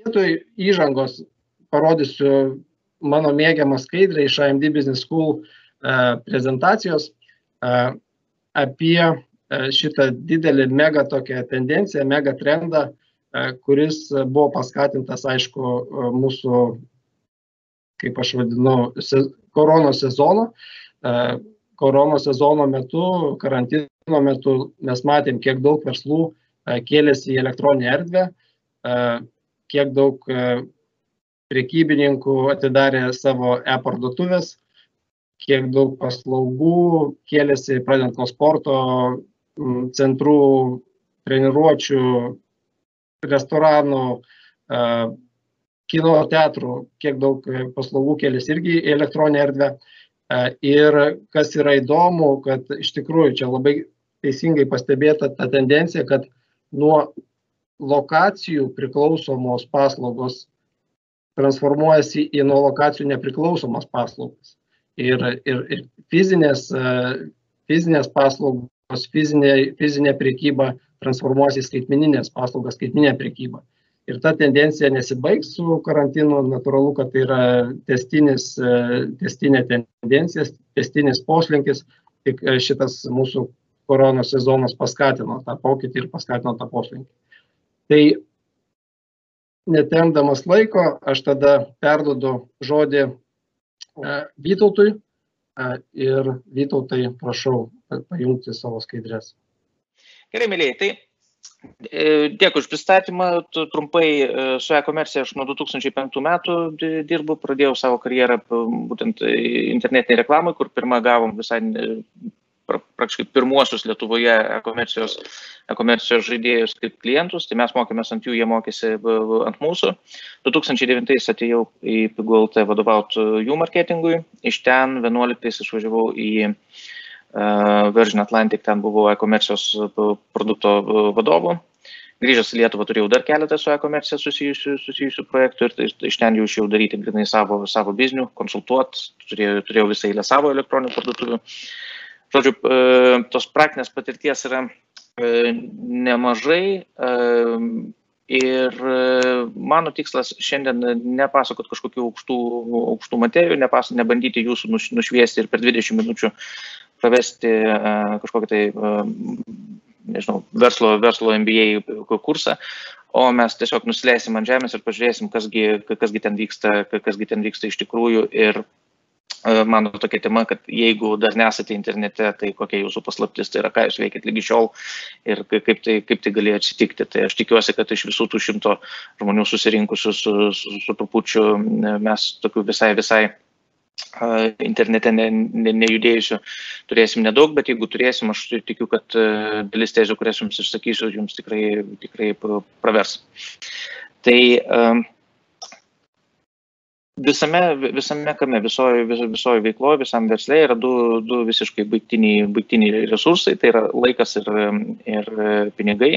Vietoj įžangos parodysiu mano mėgiamą skaidrę iš IMD Business School prezentacijos apie šitą didelį mega tokią tendenciją, mega trendą, kuris buvo paskatintas, aišku, mūsų, kaip aš vadinu, koronos sezono. Koronos sezono metu, karantino metu mes matėm, kiek daug verslų kėlėsi į elektroninę erdvę, kiek daug prekybininkų atidarė savo e-parduotuvės, kiek daug paslaugų kėlėsi, pradedant nuo sporto centrų, treniruočių, restoranų, kino teatrų, kiek daug paslaugų kėlėsi irgi į elektroninę erdvę. Ir kas yra įdomu, kad iš tikrųjų čia labai teisingai pastebėta ta tendencija, kad nuo lokacijų priklausomos paslaugos transformuojasi į nuo lokacijų nepriklausomas paslaugas. Ir fizinės paslaugos, fizinė prekyba transformuojasi į skaitmeninės paslaugas, skaitmeninę prekybą. Ir ta tendencija nesibaigs su karantinu, natūralu, kad tai yra testinė tendencija, testinis poslinkis, tik šitas mūsų koronos sezonas paskatino tą pokytį ir paskatino tą poslinkį. Tai netempdamas laiko, aš tada perduodu žodį Vytautui ir Vytautai prašau pajungti savo skaidrės. Gerai, mėlyje, tai dėkui už pristatymą. Trumpai su e-komercija aš nuo 2005 metų dirbu, pradėjau savo karjerą būtent internetinėje reklamai, kur pirmą gavom visai praktiškai pirmuosius Lietuvoje e-komercijos žaidėjus kaip klientus, tai mes mokėmės ant jų, jie mokėsi ant mūsų. 2009 atėjau į PiguLT vadovauti jų marketingui, iš ten 11 išvažiavau į Virgin Atlantic, ten buvau e-komercijos produkto vadovu. Grįžęs į Lietuvą turėjau dar keletą su e-komercija susijusių projektų ir iš ten jau išėjau daryti grinai savo biznių, konsultuoti, turėjau visą eilę savo elektroninių parduotuvių. Žodžiu, tos praktinės patirties yra nemažai ir mano tikslas šiandien nepasakot kažkokių aukštų materijų, nebandyti jūsų nušviesti ir per 20 minučių pravesti kažkokį tai, nežinau, verslo MBA kursą, o mes tiesiog nusileisim ant žemės ir pažiūrėsim, kasgi ten vyksta iš tikrųjų. Ir mano tokia tema, kad jeigu dar nesate internete, tai kokia jūsų paslaptis, tai yra ką jūs veikit lygi šiol ir kaip tai galėjo atsitikti. Tai aš tikiuosi, kad iš visų tų 100 žmonių susirinkusių su trupučiu mes tokių visai internete nejudėjusių turėsim nedaug, bet jeigu turėsim, aš tikiu, kad dalis tezių, kurias jums išsakysiu, jums tikrai pravers. Tai visame kame, visoje veikloje, visam versle yra du visiškai baigtiniai resursai, tai yra laikas ir pinigai,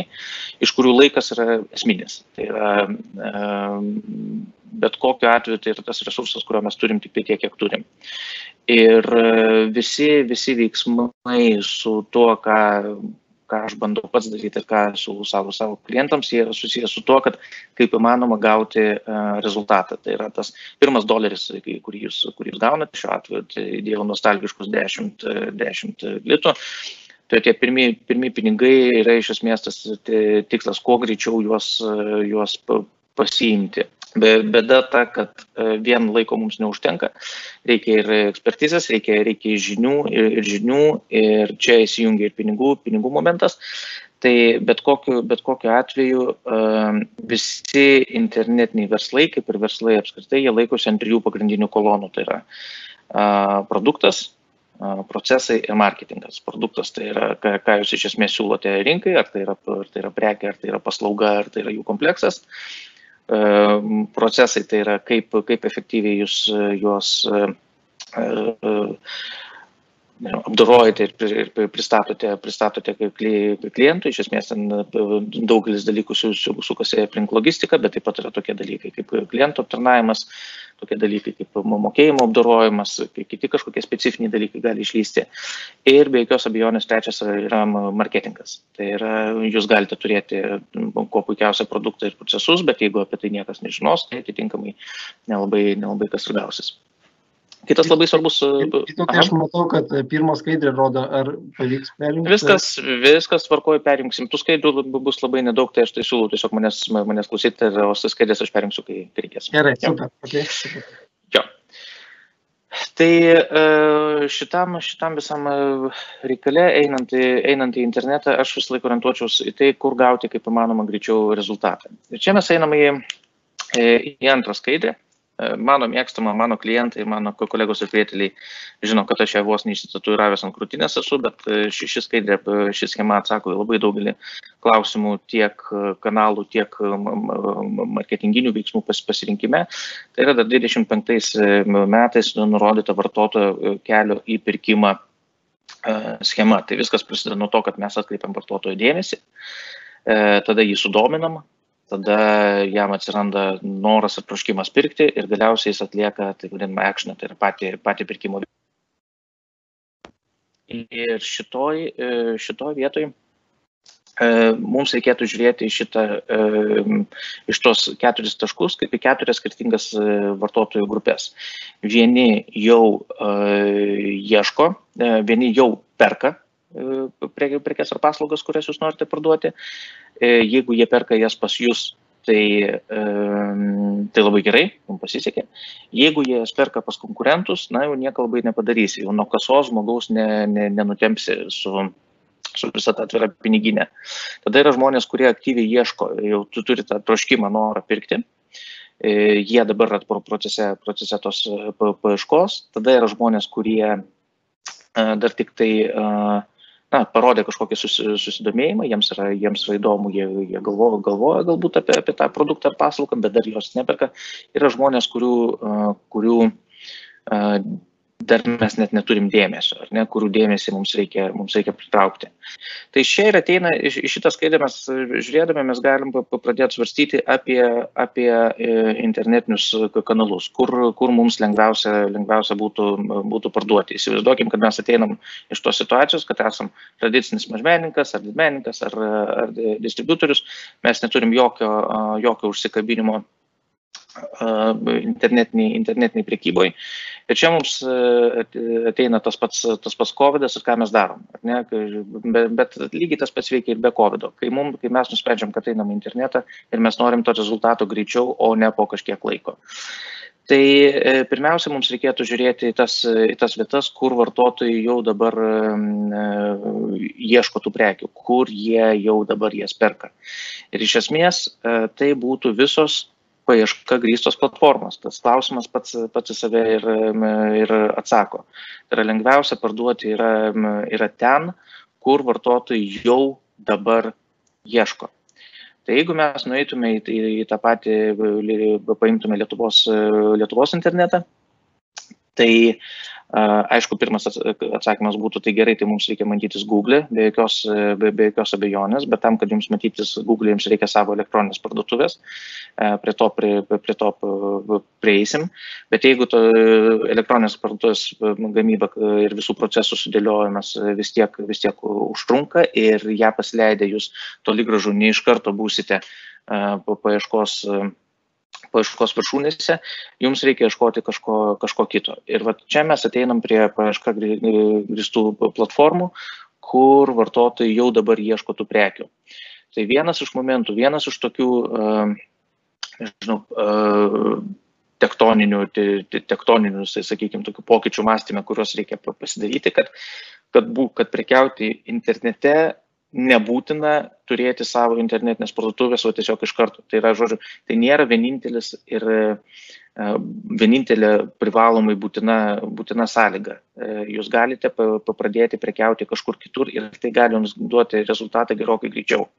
iš kurių laikas yra esminis. Tai yra bet kokiu atveju tai yra tas resursas, kurio mes turim tik tai tiek, kiek turim. Ir visi veiksmai su tuo, ką aš bandau pats daryti ir ką su savo klientams, jie yra susijęs su tuo, kad kaip įmanoma gauti rezultatą. Tai yra tas pirmas doleris, kurį jūs gaunate, šiuo atveju tai dėjau nostalgiškus 10 litų. Tai tie pirmi pinigai yra iš esmės tas tikslas, kuo greičiau juos pasiimti. Bėda ta, kad vien laiko mums neužtenka, reikia ir ekspertizės, reikia žinių ir čia įsijungia ir pinigų momentas. Tai bet kokiu atveju visi internetiniai verslai, kaip ir verslai apskritai, jie laikosi ant 3 pagrindinių kolonų. Tai yra produktas, procesai ir marketingas. Produktas tai yra, ką jūs iš esmės siūlote rinkai, ar tai yra prekė, ar tai yra paslauga, ar tai yra jų kompleksas. Procesai tai yra, kaip efektyviai jūs juos apdorojate ir pristatote klientui. Iš esmės ten daugelis dalykų sukasi aplink logistiką, bet taip pat yra tokie dalykai kaip klientų aptarnavimas, tokie dalykai kaip mokėjimo apdorojimas, kiti kažkokie specifiniai dalykai gali išlysti. Ir be jokios abejonės trečias yra marketingas. Tai yra, jūs galite turėti kuo puikiausią produktą ir procesus, bet jeigu apie tai niekas nežinos, tai atitinkamai nelabai kas ir gausis. Kitas labai svarbus... Tai aš matau, kad pirmą skaidrį rodo, ar pavyks perjungti. Viskas tvarkoju, perjungsim. Tų skaidrų bus labai nedaug, tai aš tai siūlau tiesiog manęs klausyti, o skaidrės aš perjungsiu, kai reikės. Gerai, super. Okay. Jo. Tai šitam visam reikale, einant į internetą, aš vis laik orientuočiausi į tai, kur gauti kaip įmanoma greičiau rezultatą. Ir čia mes einam į antrą skaidrę. Mano mėgstama, mano klientai, mano kolegos ir prieteliai žino, kad aš ją vos neišsitatuiravęs ant krūtinės esu, bet ši schema atsako į labai daugelį klausimų tiek kanalų, tiek marketinginių veiksmų pasirinkime. Tai yra dar 25 metais nurodyta vartotojo kelio į pirkimą schema. Tai viskas prasideda nuo to, kad mes atkreipiam vartotojo dėmesį, tada jį sudominam, tada jam atsiranda noras ir troškimas pirkti ir galiausiai jis atlieka, tai vadinama, actioną, tai yra patį pirkimo. Ir šitoj vietoj mums reikėtų žiūrėti iš tos 4 taškus kaip į 4 skirtingas vartotojų grupės. Vieni jau ieško, vieni jau perka prekes ar paslaugas, kurias jūs norite parduoti. Jeigu jie perka jas pas jūs, tai labai gerai, jums pasisekė. Jeigu jie jas perka pas konkurentus, jau nieko labai nepadarysi, jau nuo kasos žmogaus nenutempsi su visą tą atvirą piniginę. Tada yra žmonės, kurie aktyviai ieško, jau tu turi tą troškimą, norą pirkti. Jie dabar yra procese tos paieškos. Tada yra žmonės, kurie dar tik tai parodė kažkokį susidomėjimą, jiems yra įdomu, jie galvoja galbūt apie tą produktą ar paslaugą, bet dar jos neperka. Yra žmonės, kurių dar mes net neturim dėmesio, ar ne, kurių dėmesį mums reikia pritraukti. Tai čia ir ateina, iš šitą skaidę mes žiūrėdami, mes galim pradėti svarstyti apie internetinius kanalus, kur mums lengviausia būtų parduoti. Įsivaizduokim, kad mes ateinam iš tos situacijos, kad esam tradicinis mažmenininkas ar didmenininkas ar distributorius, mes neturim jokio užsikabinimo internetiniai prekyboj. Ir čia mums ateina tas pats COVID-as ir ką mes darom. Ne? Bet lygiai tas pats veikia ir be COVID-o. Kai mes nusprendžiam, kad einam į internetą ir mes norim to rezultato greičiau, o ne po kažkiek laiko. Tai pirmiausia, mums reikėtų žiūrėti į tas vietas, kur vartotojai jau dabar ieško tų prekių, kur jie jau dabar jas perka. Ir iš esmės tai būtų visos paieška grįstos platformos. Tas klausimas pats į save ir atsako. Tai yra lengviausia parduoti yra ten, kur vartotojai jau dabar ieško. Tai jeigu mes nueitume į tą patį, paimtume Lietuvos internetą, tai aišku, pirmas atsakymas būtų, tai gerai, tai mums reikia matytis Google, be jokios abejonės, bet tam, kad jums matytis Google, jums reikia savo elektroninės parduotuvės, prie to prieisim, bet jeigu to elektroninės parduotuvės gamyba ir visų procesų sudėliojimas vis tiek užtrunka ir ją pasileidę jūs toli gražu ne iš karto būsite paieškos viršūnėse, jums reikia ieškoti kažko kito. Ir čia mes ateinam prie paieška grįstų platformų, kur vartotojai jau dabar ieško tų prekių. Tai vienas iš momentų, vienas iš tokių, tektoninių, tai sakykime, tokių pokyčių mąstyme, kuriuos reikia pasidaryti, kad prekiauti internete nebūtina turėti savo internetinės parduotuvės, o tiesiog iš karto. Tai yra, žodžiu, tai nėra vienintelė privalomai būtina sąlyga. Jūs galite pradėti prekiauti kažkur kitur ir tai gali jums duoti rezultatą gerokai greičiau.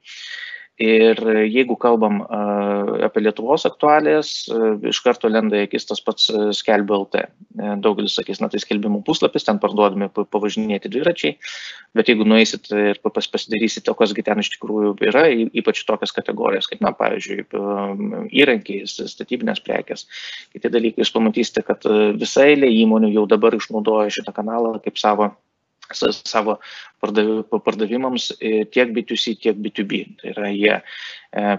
Ir jeigu kalbam apie Lietuvos aktualijas, iš karto lenda į akis tas pats Skelbiu LT. Daugelis sakys, tai skelbimų puslapis, ten parduodami pavažinėti dviračiai, bet jeigu nueisit ir pasidarysite, o kasgi ten iš tikrųjų yra, ypač tokias kategorijas, kaip, pavyzdžiui, įrankiai, statybinės prekės, kiti dalykai, jūs pamatysite, kad visa eilė įmonių jau dabar išnaudoja šitą kanalą kaip savo pardavimams tiek B2C, tiek B2B. Tai yra, jie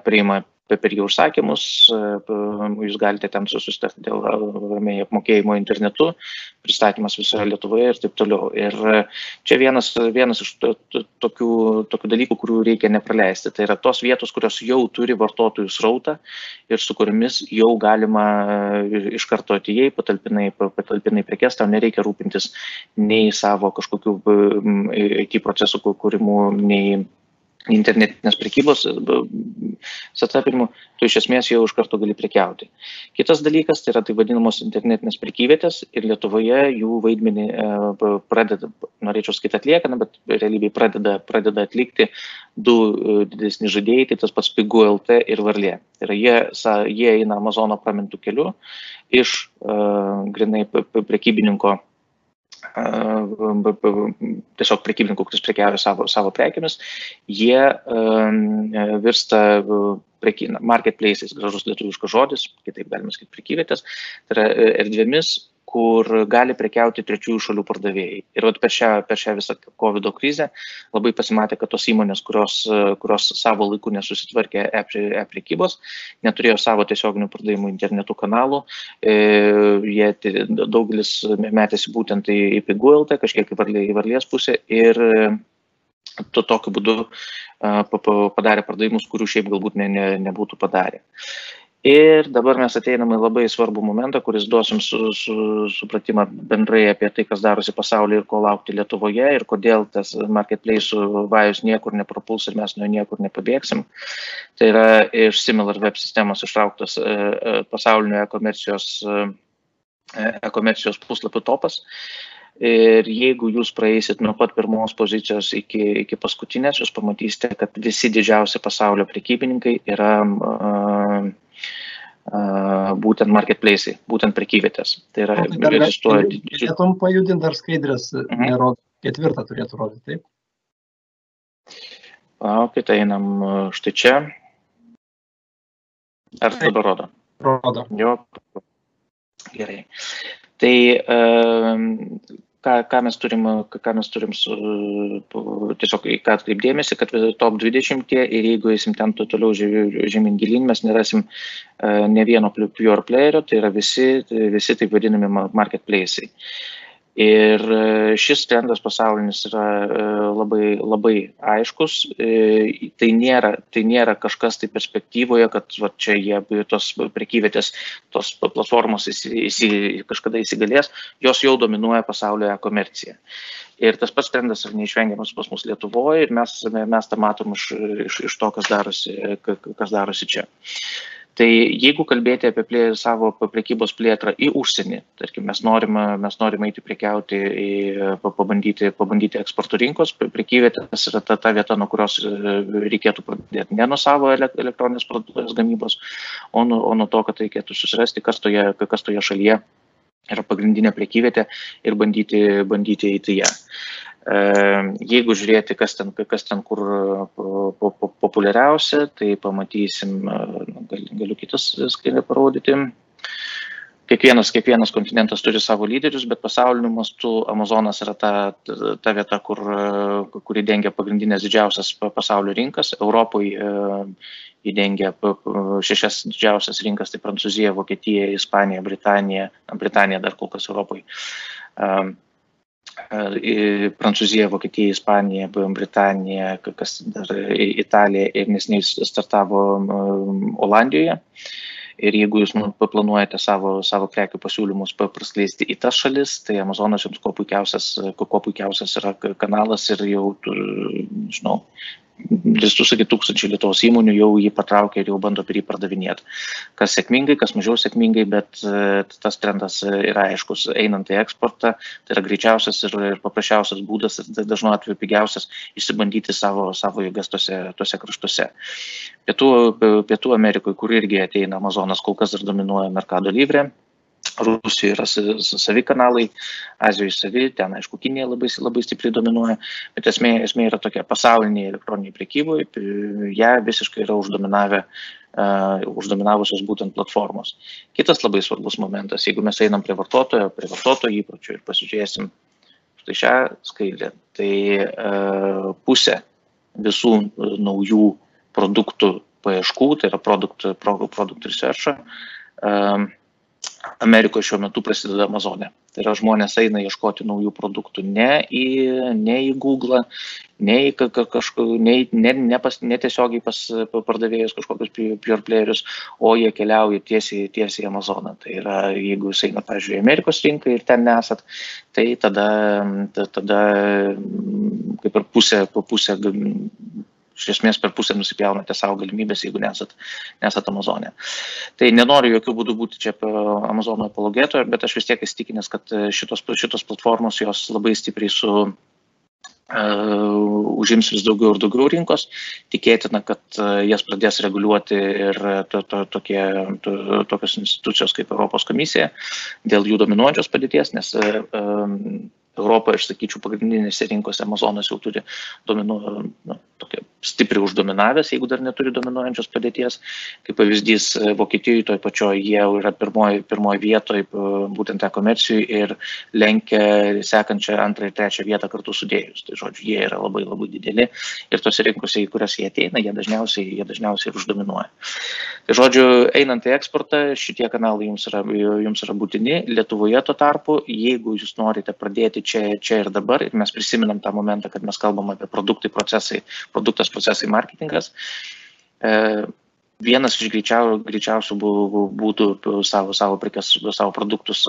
priima per jų užsakymus, jūs galite ten susitarti dėl apmokėjimo internetu, pristatymas visoje Lietuvoje ir taip toliau. Ir čia vienas iš tokių dalykų, kurių reikia nepraleisti. Tai yra tos vietos, kurios jau turi vartotojų srautą ir su kuriamis jau galima iš karto atėjai, patalpinai prekes, tau nereikia rūpintis nei savo kažkokių IT procesų kūrimų, nei internetinės prekybos setapinimu, tu iš esmės jau iš karto gali prekiauti. Kitas dalykas, tai yra tai vadinamos internetinės prekyvietės ir Lietuvoje jų vaidmenį pradeda, norėčiau sakyti atlieka, bet realybėj pradeda atlikti du didesni žaidėjai, tai tas pats Pigu LT ir Varlė. Tai yra jie eina Amazono pramintų keliu iš grinai prekybininko, tiesiog prekybininkų, kuris prekiauja savo prekiamis, jie virsta marketplaces, gražus lietuviškas žodis, kitaip galima sakyti prekyvietės, tai yra erdvėmis, kur gali prekiauti trečiųjų šalių pardavėjai. Ir per šią visą COVID krizę labai pasimatė, kad tos įmonės, kurios savo laiku nesusitvarkė e-prekybos, neturėjo savo tiesioginių pardavimų internetų kanalų, jie daugelis metėsi būtent į Pigu LT, kažkiek į Varlės pusę ir tokiu būdu padarė pardavimus, kurių šiaip galbūt nebūtų padarę. Ir dabar mes ateiname labai svarbų momentą, kuris duosim supratimą bendrai apie tai, kas darosi pasaulyje ir ko laukti Lietuvoje ir kodėl tas marketplace vajus niekur neprapuls ir mes nuo niekur nepabėgsim. Tai yra iš SimilarWeb sistemos ištrauktas pasaulinio e-komercijos puslapių topas. Ir jeigu jūs praeisit nuo pat pirmos pozicijos iki paskutinės, jūs pamatysite, kad visi didžiausi pasaulio prekybininkai yra būtent marketplace'ai, būtent prekyvietės. Tai yra, egzistuoja... Galėtum pajudinti dar skaidrės, nerodo, 4 turėtų rodyti, taip? Ok, tai einam štai čia. Ar dabar rodo? Rodo. Jo, gerai. Tai ką mes turim tiesiog į ką atkreipdėmėsi, kad top 20 ir jeigu eisim ten toliau žemyn gilyn, mes nerasim ne vieno pure playerio, tai yra visi taip vadinami marketplace'ai. Ir šis trendas pasaulinis yra labai, labai aiškus. Tai nėra kažkas tai perspektyvoje, kad čia jie tos prekyvietės, tos platformos kažkada įsigalės, jos jau dominuoja pasaulio e-komerciją. Ir tas pats trendas yra neišvengiamas pas mus Lietuvoje ir mes tą matom iš to, kas darosi čia. Tai jeigu kalbėti apie savo prekybos plėtrą į užsienį, tarkim, mes norime eiti prekiauti, pabandyti eksporto rinkos, prekyvietės yra ta vieta, nuo kurios reikėtų pradėti ne nuo savo elektroninės parduotuvės gamybos, o nuo to, kad reikėtų susirasti, kas toje šalyje yra pagrindinė prekyvietė ir bandyti eiti ją. Jeigu žiūrėti, kas ten kur populiariausia, tai pamatysim, galiu kitas skaidrę parodyti. Kiekvienas kontinentas turi savo lyderius, bet pasauliniu mastu Amazonas yra ta vieta, kuri dengia pagrindinės didžiausias pasaulio rinkas. Europoje įdengia 6 didžiausias rinkas, tai Prancūzija, Vokietija, Ispanija, Britanija dar kol kas Europoje. Prancūzija, Vokietija, Ispanija, Britanija, Italija ir neseniai startavo Olandijoje. Ir jeigu jūs planuojate savo prekių pasiūlymus praskleisti į tas šalis, tai Amazonas jums kuo puikiausias yra kanalas ir jau, tūkstančiai Lietuvos įmonių jau jį patraukė ir jau bando per jį pardavinėti. Kas sėkmingai, kas mažiau sėkmingai, bet tas trendas yra aiškus. Einant į eksportą, tai yra greičiausias ir paprasčiausias būdas ir dažnu atveju pigiausias išsibandyti savo jėgas tose kraštuose. Pietų Amerikoje, kur irgi ateina Amazonas, kol kas dar dominuoja Mercado Libre. Rusijoje yra savi kanalai, Azijoje savi, ten aišku Kinija labai stipriai dominuoja, bet esmė yra tokia pasaulinėje elektroniniai prekyboje, ją visiškai yra uždominavusios būtent platformos. Kitas labai svarbus momentas, jeigu mes einam prie vartotojo įpročių ir pasižiūrėsim štai šią skaidrę, tai pusė visų naujų produktų paieškų, tai yra product research, Amerikoje šiuo metu prasideda Amazone. Tai yra žmonės eina ieškoti naujų produktų ne į Google, ne tiesiogiai pas pardavėjus kažkokius pure playerius, o jie keliauja tiesiai į Amazoną. Tai yra, jeigu jūs eina, pavyzdžiui, Amerikos rinką ir ten nesat, tai tada kaip ir pusė iš esmės per pusę nusipjaunate savo galimybės, jeigu nesat Amazone. Tai nenoriu jokių būdų būti čia Amazono apologetoje, bet aš vis tiek įsitikinęs, kad šitos platformos jos labai stipriai užims vis daugiau ir daugiau rinkos. Tikėtina, kad jas pradės reguliuoti ir tokios institucijos kaip Europos komisija dėl jų dominuojančios padėties, nes Europoje, aš sakyčiau, pagrindinėse rinkose Amazonas jau turi tokia stipriai uždominavęs, jeigu dar neturi dominuojančios padėties. Kaip pavyzdys, Vokietijoje toj pačioj jie yra pirmoji vietoje būtent e-komercijai ir lenkia sekančią antrą ir trečią vietą kartu sudėjus. Tai žodžiu, jie yra labai labai dideli ir tose rinkose, į kurias jie ateina, jie dažniausiai ir uždominuoja. Tai žodžiu, einant į eksportą, šitie kanalai jums yra būtini. Lietuvoje tuo tarpu, jeigu jūs norite pradėti čia ir dabar, ir mes prisiminam tą momentą, kad mes kalbam apie produktas, procesai, marketingas. Vienas iš greičiausių būdų savo prekes, savo produktus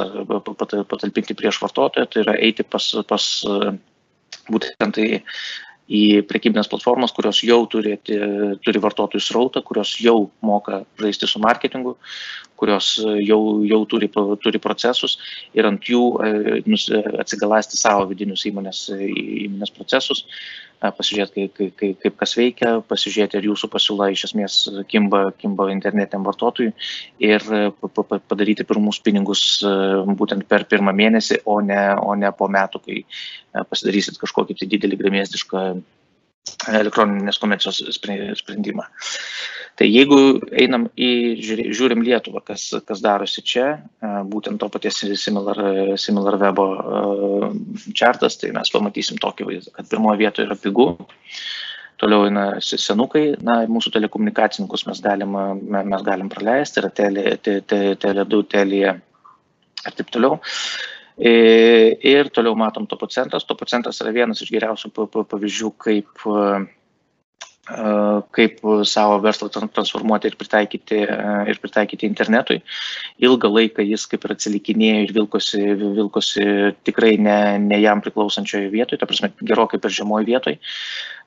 patalpinti prieš vartotoją, tai yra eiti pas būtent į prekybinės platformas, kurios jau turi vartotojų srautą, kurios jau moka žaisti su marketingu, kurios jau turi procesus ir ant jų atsigalasti savo vidinius įmonės procesus, pasižiūrėti, kaip kas veikia, pasižiūrėti, ar jūsų pasiūla iš esmės kimba internetiniam vartotojui ir padaryti pirmus pinigus būtent per pirmą mėnesį, o ne po metų, kai pasidarysit kažkokį tai didelį gremėzdišką elektroninės komercijos sprendimą. Tai jeigu žiūrim Lietuvą, kas darosi čia, būtent to paties Similar Web chartas, tai mes pamatysim tokį vaizdą, kad pirmoje vietoje yra pigu, toliau eina senukai, mūsų telekomunikacininkus mes galim praleisti, yra Tele2, Telia ir taip toliau. Ir toliau matom Topo centras. Topo centras yra vienas iš geriausių pavyzdžių, kaip savo verslą transformuoti ir pritaikyti internetui. Ilgą laiką jis kaip ir atsilikinėjo ir vilkosi tikrai ne jam priklausančioje vietoje, ta prasme gerokai per žemoj vietoj.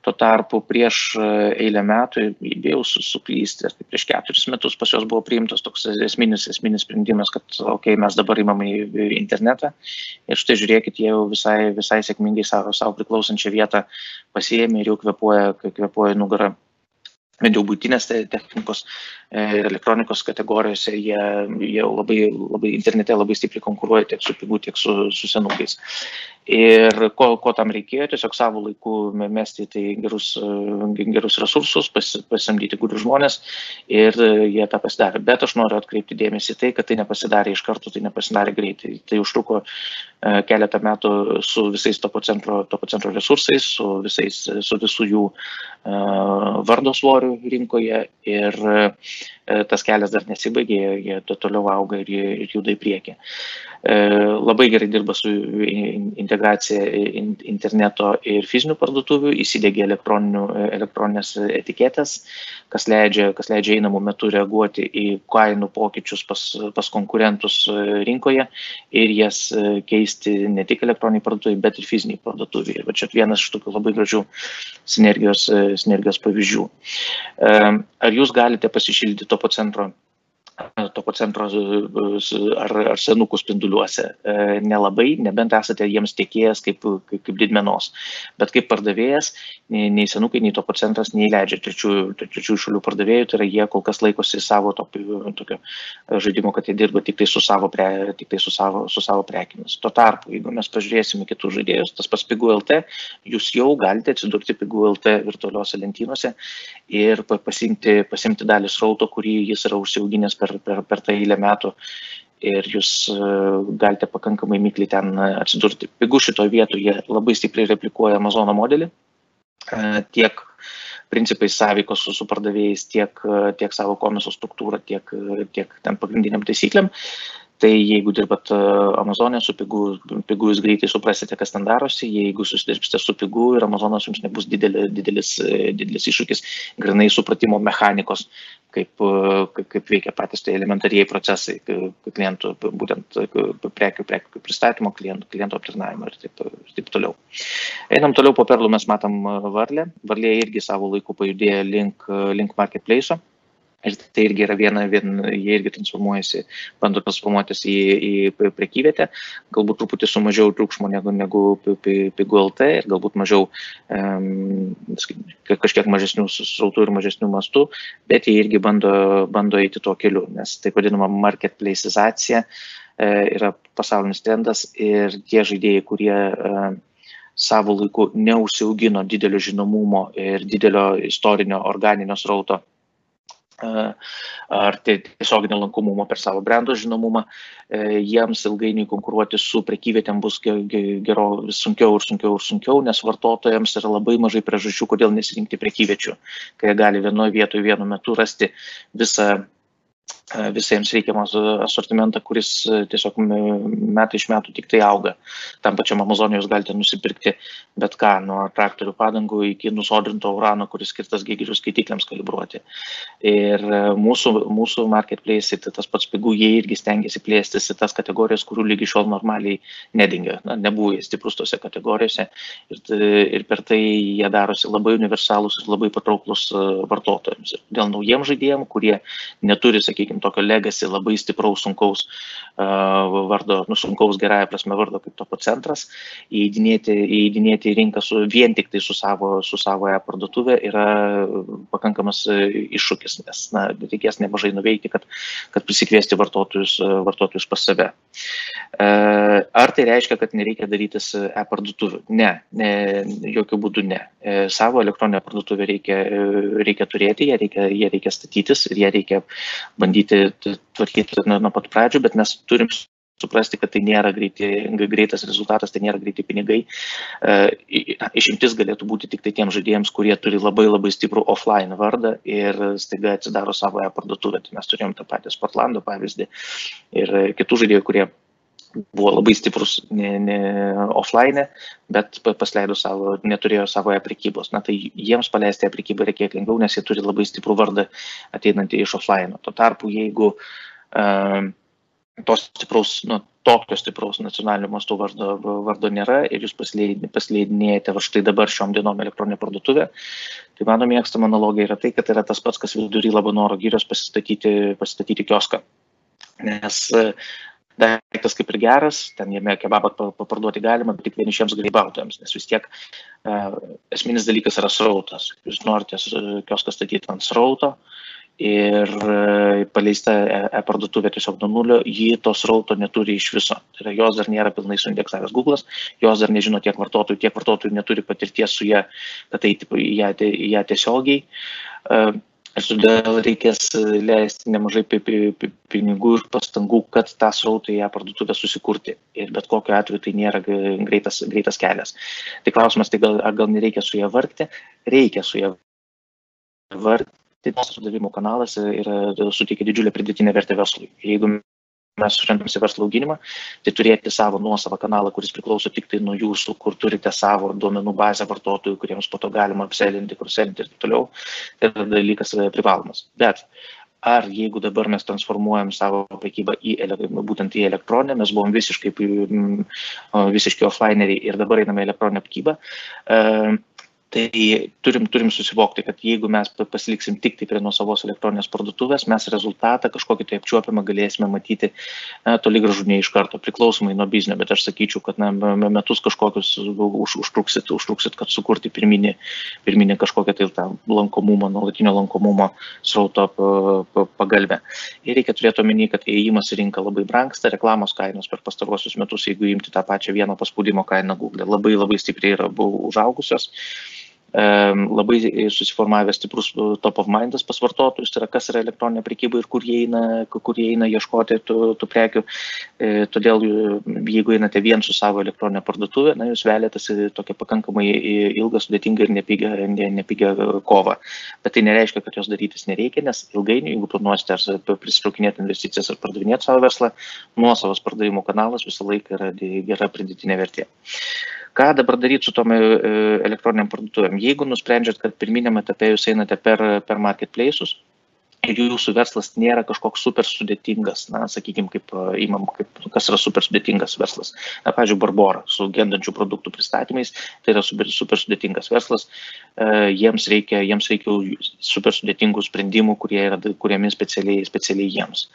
Tuo tarpu prieš eilę metų, bijau suklysti, prieš 4 metus pas juos buvo priimtas toks esminis sprendimas, kad mes dabar imam į internetą ir štai žiūrėkit, jie jau visai sėkmingai savo priklausančią vietą pasiėmė ir jau kvėpuoja nugarą. Bent jau būtinės technikos ir elektronikos kategorijose jie labai internete labai stipriai konkuruoja tiek su pigu, tiek su senukais. Ir ko tam reikėjo, tiesiog savo laiku mesti tai gerus resursus, pasamdyti gudrius žmonės ir jie tą pasidarė. Bet aš noriu atkreipti dėmesį tai, kad tai nepasidarė iš karto, tai nepasidarė greitai. Tai užtruko keletą metų su visais Topo centro resursais, su visų jų vardo svoriu rinkoje ir tas kelias dar nesibaigė, jie toliau auga ir juda į priekį. Labai gerai dirba su integracija interneto ir fizinių parduotuvių, įsidėgia elektroninės etiketės, kas leidžia einamų metų reaguoti į kainų pokyčius pas konkurentus rinkoje ir jas keisti ne tik elektroniniai parduotuvai, bet ir fiziniai parduotuvai. Ir čia vienas iš tokių labai gražių sinergijos pavyzdžių. Ar jūs galite pasišildyti topo centro ar senukų spinduliuose? Nelabai, nebent esate jiems tiekėjas kaip didmenos. Bet kaip pardavėjas, nei senukai, nei topo centras neįleidžia trečiųjų šalių pardavėjų, tai yra jie kol kas laikosi savo tokio žaidimo, kad jie dirba tik tai su savo prekimis. Tuo tarpu, jeigu mes pažiūrėsime kitus žaidėjus, tas pas Pigų.lt, jūs jau galite atsidurti Pigų.lt virtualiuose lentynose ir pasimti dalį srauto, kurį jis yra užsiauginęs per tą eilę metų ir jūs galite pakankamai mikliai ten atsidurti. Pigų šitoje vietoje labai stipriai replikuoja Amazono modelį, tiek principais sąveikos su pardavėjais, tiek savo komiso struktūrą, tiek ten pagrindiniam taisyklėm. Tai jeigu dirbat Amazonė su Pigų, jūs greitai suprasite, kas ten darosi. Jeigu susidirbsite su Pigų ir Amazonas jums nebus didelis iššūkis grinai supratimo mechanikos, kaip veikia patys tai elementarieji procesai klientų, būtent prekių pristatymo, klientų aptarnavimo ir taip toliau. Einam toliau, po Perlų mes matom Varlę. Varlė irgi savo laiku pajudėjo link marketplace'o. Ir tai irgi yra jie irgi bando transformuotis į prekyvietę, galbūt truputį su mažiau triukšmo negu Pigų.lt ir galbūt mažiau kažkiek mažesnių srautų ir mažesnių mastų, bet jie irgi bando eiti tuo keliu, nes taip vadinama marketplace'izacija yra pasaulinis trendas ir tie žaidėjai, kurie savo laiku neužsiaugino didelio žinomumo ir didelio istorinio organinio srauto ar tiesioginio lankomumo per savo brendo žinomumą, jiems ilgainiui konkuruoti su prekyvietėm bus vis sunkiau, nes vartotojams yra labai mažai priežasčių, kodėl nesirinkti prekyviečių, kai jie gali vienoje vietoje vienu metu rasti visą jiems reikiamą asortimentą, kuris tiesiog metai iš metų tik tai auga. Tam pačiam Amazonė jūs galite nusipirkti bet ką, nuo traktorių padangų iki nusodrinto urano, kuris skirtas geigerio skaitikliams kalibruoti. Ir mūsų marketplace, tai tas pats Pigų, jie irgi stengiasi plėstis į tas kategorijas, kurių lygi šiol normaliai nedingia. Nebuvo jie stiprus tose kategorijose ir per tai jie darosi labai universalūs ir labai patrauklus vartotojams. Dėl naujiems žaidėjams, kurie neturi, sakykime, tokio legacy labai stipraus, sunkaus vardo, sunkaus gerąją prasme vardo kaip topo centras, įeidinėti į rinką vien tik tai su savo parduotuvė yra pakankamas iššūkis, nes reikės nemažai nuveikti, kad prisikviesti vartotojus pas save. Ar tai reiškia, kad nereikia darytis parduotuvių? Ne, jokių būdų ne. Savo elektroninę parduotuvę reikia turėti, ją reikia statytis ir ją reikia bandyti tvarkyti nuo pat pradžių, bet mes turim suprasti, kad tai nėra greitas rezultatas, tai nėra greiti pinigai. Išimtis galėtų būti tik tai tiems žaidėjams, kurie turi labai labai stiprų offline vardą ir staiga atsidaro savo parduotuvę. Tai mes turėjom tą patį Sportlando pavyzdį ir kitų žaidėjų, kurie buvo labai stiprus offline, bet neturėjo savo prekybos. Tai jiems paleisti prekybą reikia kiek lengviau, nes jie turi labai stiprų vardą ateinantį iš offline. Tuo tarpu, jeigu tokio stipraus nacionalinio masto vardo nėra ir jūs pasileidinėjate štai dabar šiom dienom elektroninę parduotuvę, tai mano mėgstama analogija yra tai, kad yra tas pats, kas vidury Labanoro girios pasistatyti kioską. Nes daiktas kaip ir geras, ten jame kebabą paparduoti galima, bet tik vienišiems grybautojams, nes vis tiek esminis dalykas yra srautas. Jūs norite kioską statyti ant srauto ir paleista parduotuvė tiesiog nuo nulio, ji to srauto neturi iš viso. Tai yra, jos dar nėra pilnai suindeksavęs Google'as, jos dar nežino tiek vartotojų neturi patirties su ją, kad eiti į ją tiesiogiai. Ir todėl reikės leisti nemažai pinigų ir pastangų, kad tą srautą į ją parduotuvę susikurti. Ir bet kokiu atveju tai nėra greitas kelias. Tai klausimas, tai gal nereikia su ją vargti? Reikia su ją vargti. Tas pardavimo kanalas suteikia didžiulę pridėtinę vertę verslui. Jeigu mes orientuojamės į verslo auginimą, tai turėti savo nuosavą kanalą, kuris priklauso tik tai nuo jūsų, kur turite savo duomenų bazę vartotojų, kuriems po to galima apselinti, kurselinti ir taip toliau, tai dalykas privalomas. Bet ar jeigu dabar mes transformuojam savo prekybą būtent į elektroninę, mes buvom visiškai offlineriai ir dabar einame į elektroninę prekybą, tai turim susivokti, kad jeigu mes pasiliksim tik tai prie nuosavos elektroninės parduotuvės, mes rezultatą kažkokį tai apčiuopiamą galėsime matyti toli gražu ne iš karto, priklausomai nuo biznio, bet aš sakyčiau, kad metus kažkokius užtruksit, kad sukurti pirminį kažkokią tai tą lankomumą, nuolatinio lankomumo srauto pagalbę. Ir reikia turėti omeny, kad įėjimas į rinką labai brangsta, reklamos kainos per pastaruosius metus, jeigu imti tą pačią vieno paspaudimo kainą Google, labai stipriai yra užaugusios. Labai susiformavęs stiprus top of mindas pas vartotojus, tai yra kas yra elektroninė prekyba ir kur jie eina ieškoti tų prekių. Todėl, jeigu einate vien su savo elektroninė parduotuvė, jūs velėtės į tokią pakankamai ilgą, sudėtingą ir nepigią kovą. Bet tai nereiškia, kad jos darytis nereikia, nes ilgainiui, jeigu planuosite ar prisitraukinėti investicijas ar pardavinėti savo verslą, nuosavas pardavimo kanalas visą laiką yra gera pridėtinė vertė. Ką dabar daryti su tom elektroniniam parduotuvėm? Jeigu nusprendžiat, kad pirminiam etape jūs einate per marketplace'us ir jūsų verslas nėra kažkoks super sudėtingas, sakykime, kas yra super sudėtingas verslas. Pavyzdžiui, Barbora su gendančių produktų pristatymais, tai yra super sudėtingas verslas, jiems reikia super sudėtingų sprendimų, kurie yra kuriami specialiai jiems.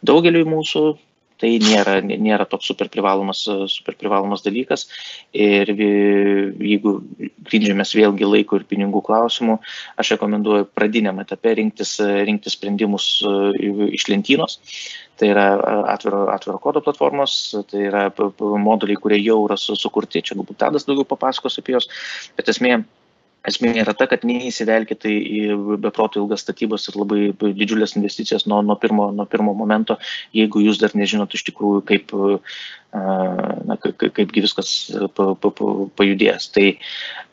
Daugeliui mūsų tai nėra toks super privalomas dalykas ir jeigu grindžiamės vėlgi laiko ir pinigų klausimų, aš rekomenduoju pradiniam etape rinktis sprendimus iš lentynos. Tai yra atviro kodo platformos, tai yra moduliai, kurie jau yra sukurti, čia galbūt Tadas daugiau papasakos apie jos, bet esmė yra ta, kad neįsivelkite į beproto ilgas statybas ir labai didžiulės investicijas nuo pirmo momento, jeigu jūs dar nežinot iš tikrųjų, kaipgi viskas pajudės. Tai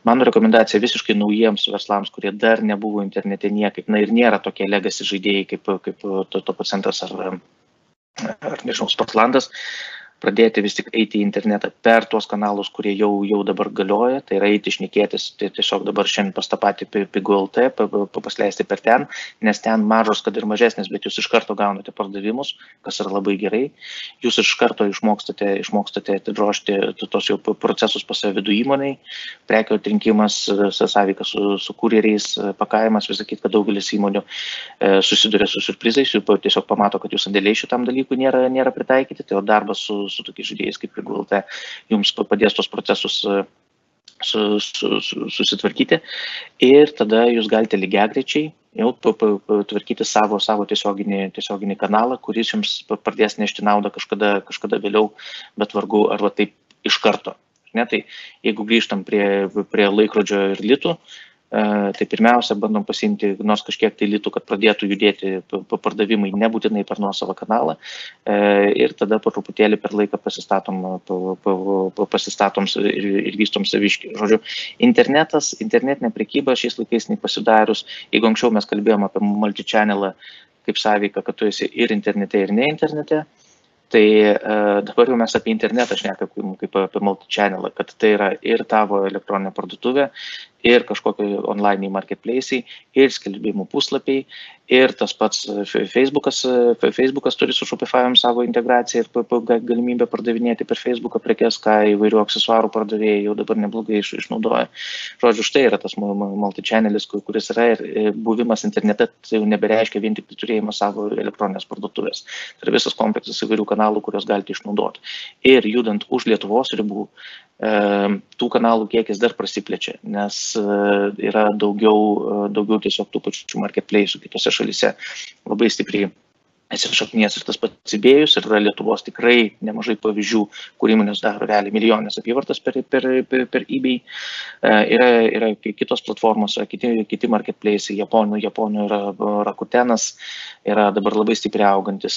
mano rekomendacija visiškai naujiems verslams, kurie dar nebuvo internete niekaip, ir nėra tokie legacy žaidėjai kaip Topocentras ar nežinau, Sportlandas, pradėti vis tik eiti į internetą per tuos kanalus, kurie jau dabar galioja, tai yra eiti šnekėtis, tai tiesiog dabar šiandien pas tą patį Pigų LT, pasleisti per ten, nes ten mažos, kad ir mažesnės, bet jūs iš karto gaunate pardavimus, kas yra labai gerai, jūs iš karto išmokstate atidrožti tos jau procesus pas save vidų įmoniai, prekių atrinkimas, sąveika su kurjeriais, pakavimas, visakyti, kad daugelis įmonių susiduria su surprizais, jų tiesiog pamato, kad jų sandėliai šitam dalykui nėra pritaikyti, tai darbas su tokiais žaidėjais kaip Pigų LT jums padės tos procesus susitvarkyti ir tada jūs galite lygiagrečiai jau tvarkyti savo tiesioginį kanalą, kuris jums pradės nešti naudą kažkada vėliau, bet vargu arba taip iš karto. Tai jeigu grįžtam prie laikrodžio ir litų, tai pirmiausia, bandom pasiimti nors kažkiek tai litų, kad pradėtų judėti pardavimai nebūtinai per nuosavą kanalą ir tada po truputėlį per laiką pasistatom ir vystom saviškį. Žodžiu, internetinė prekyba šiais laikais nepasidarius, jeigu anksčiau mes kalbėjom apie multi-channelą kaip sąveiką, kad tu esi ir internete, ir ne internete, tai dabar jau mes apie internetą šnekam kaip apie multi-channelą, kad tai yra ir tavo elektroninė parduotuvė, ir kažkokie online marketplace'ai, ir skelbimų puslapiai, ir tas pats Facebookas turi su Shopify'om savo integraciją ir galimybę pardavinėti per Facebooką prekes, ką įvairių aksesuarų pardavėjai jau dabar neblogai išnaudoja. Žodžiu, štai yra tas multi-channelis, kuris yra ir buvimas internete, tai jau nebereiškia vien tik turėjimas savo elektroninės parduotuvės. Tai yra visas kompleksas įvairių kanalų, kurios galite išnaudoti. Ir judant už Lietuvos ribų, tų kanalų kiekis dar prasiplečia, nes yra daugiau tiesiog tų pačių marketplace'ų kitose šalyse labai stipriai įsišaknijęs ir tas pats eBay'us, ir yra Lietuvos tikrai nemažai pavyzdžių, kur įmonės daro realiai milijonės apyvartas per eBay. Yra kitos platformos, kiti marketplace'ai, Japonų yra Rakutenas, yra dabar labai stipriai augantis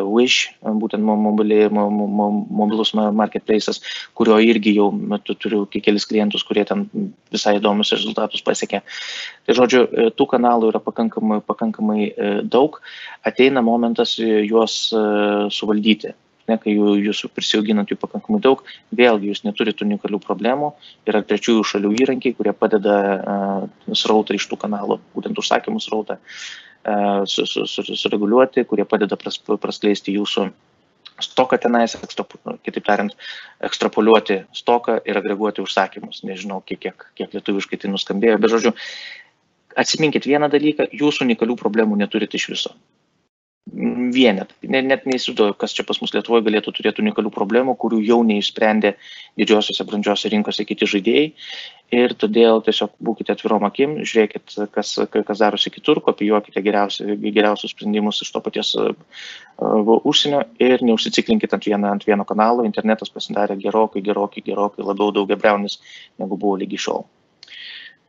Wish, būtent mobilus marketplace'as, kurio irgi jau turiu kelis klientus, kurie ten visai įdomius rezultatus pasiekė. Tai žodžiu, tų kanalų yra pakankamai daug. Ateina momentas, momentas juos suvaldyti. Kai jūs prisijauginat jų pakankamai daug, vėlgi jūs neturite unikalių problemų, yra trečiųjų šalių įrankiai, kurie padeda srautą iš tų kanalų, būtent užsakymų srautą sureguliuoti, kurie padeda praskleisti jūsų stoką tenais, kitaip tariant, ekstrapoliuoti stoką ir agreguoti užsakymus. Nežinau, kiek lietuviškai tai nuskambėjo, bet žodžiu, atsiminkit vieną dalyką, jūs unikalių problemų neturite iš viso. Vienet. Net neįsivaizduoju, kas čia pas mus Lietuvoje galėtų turėti unikalių problemų, kurių jau neišsprendė didžiosiose brandžiose rinkose kiti žaidėjai. Ir todėl tiesiog būkite atvirom akim, žiūrėkit, kas darosi kitur, kopijuokite geriausius sprendimus iš to paties užsienio ir neužsiciklinkit ant vieno kanalo. Internetas pasidarė gerokai labiau daugiabriaunis, negu buvo lygi šiol.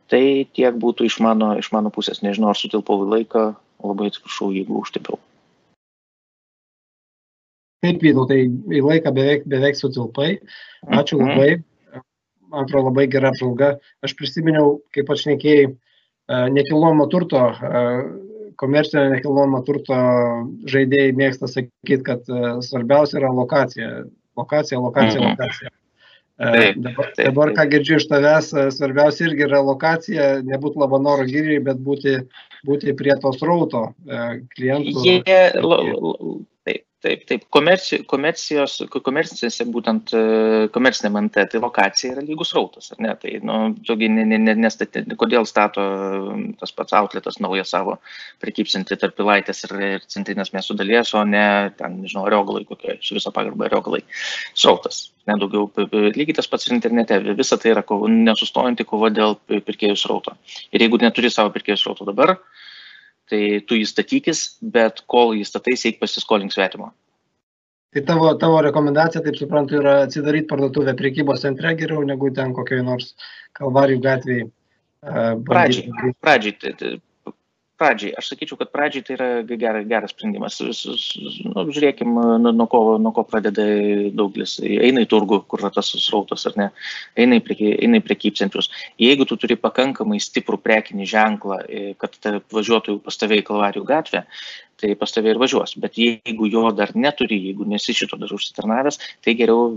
Tai tiek būtų iš mano pusės. Nežinau, ar sutilpau į laiką, labai atsiprašau, jeigu užtilpiau. Taip, Vytautai, į laiką beveik sutilpai. Ačiū labai. Man atrodo, labai gera apžvalga. Aš prisiminiau, kaip aš šnekėjai, nekilnojamo turto, komercinio nekilnojamo turto žaidėjai mėgsta sakyti, kad svarbiausia yra lokacija. Lokacija. Dabar, ką girdžiu iš tavęs, svarbiausia irgi yra lokacija, nebūti Labanoro giriai, bet būti prie to srauto klientų. Taip. Komercinėse, būtent komercinėm NT, tai lokacija yra lygus srautas, ar ne? Tai, kodėl stato tas pats outletas naują savo prekybcentį tarp Pilaitės ir centrinės miestų dalies, o ne, ten, nežinau, Ariogalai kokie, su viso pagarbą Ariogalai. Srautas, nedaugiau, lygiai tas pats ir internete, visa tai yra nesustojanti kova dėl pirkėjų srauto. Ir jeigu neturi savo pirkėjų srauto dabar, tai tu jį statykis, bet kol jį statais, eik pasiskolink svetimo. Tai tavo rekomendacija, taip suprantu, yra atsidaryti parduotuvę prekybos centre geriau, negu ten kokioj nors Kalvarijų gatvėje. Pradžiai, aš sakyčiau, kad pradžiai tai yra geras sprendimas. Žiūrėkim, nuo ko pradeda daugelis. Eina į turgų, kur yra tas srautas, ar ne? Eina į prekybcentrius. Jeigu tu turi pakankamai stiprų prekinį ženklą, kad važiuotų pas tave į Kalvarijų gatvę, tai pas tave ir važiuos. Bet jeigu jo dar neturi, jeigu nesi šito dar užsitarnavęs, tai geriau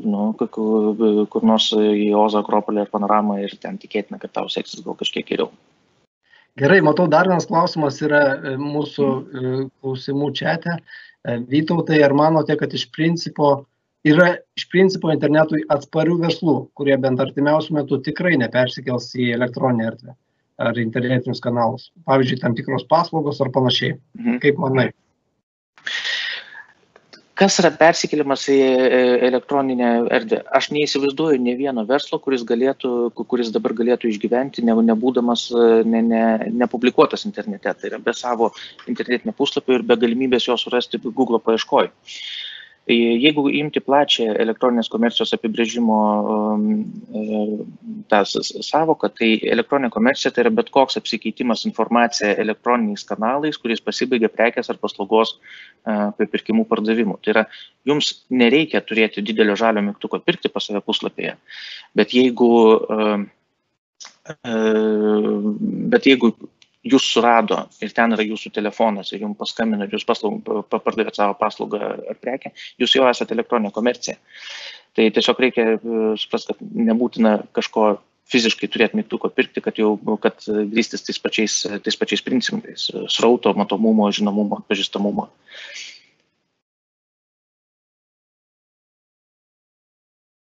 kur nors į Ozo, Akropolį ar Panoramą ir ten tikėtina, kad tau seksis gal kažkiek geriau. Gerai, matau, dar vienas klausimas yra mūsų klausimų čate. Vytautai, ar manote, kad iš principo internetui atsparių verslų, kurie bent artimiausiu metu tikrai nepersikels į elektroninę erdvę ar internetinius kanalus? Pavyzdžiui, tam tikros paslaugos ar panašiai. Kaip manai? Kas yra persikėlimas į elektroninę erdvę? Aš neįsivaizduoju ne vieno verslo, kuris dabar galėtų išgyventi, nebūdamas nepublikuotas internete. Tai yra be savo internetinio puslapio ir be galimybės jo surasti Google paieškoj. Jeigu imti plačią elektroninės komercijos apibrėžimo tą savoką, tai elektroninė komercija tai yra bet koks apsikeitimas informacija elektroniniais kanalais, kuris pasibaigia prekės ar paslaugos pirkimų pardavimu. Tai yra, jums nereikia turėti didelio žalio mygtuko pirkti pas save puslapyje, bet jeigu jūs surado ir ten yra jūsų telefonas ir jums paskambino ir jūs pardavėt savo paslaugą ar prekę, jūs jau esate elektroninė komercija. Tai tiesiog reikia suprasti, kad nebūtina kažko fiziškai turėti mygtuko pirkti, kad grįstis tais pačiais principais, srauto, matomumo, žinomumo, atpažįstamumo.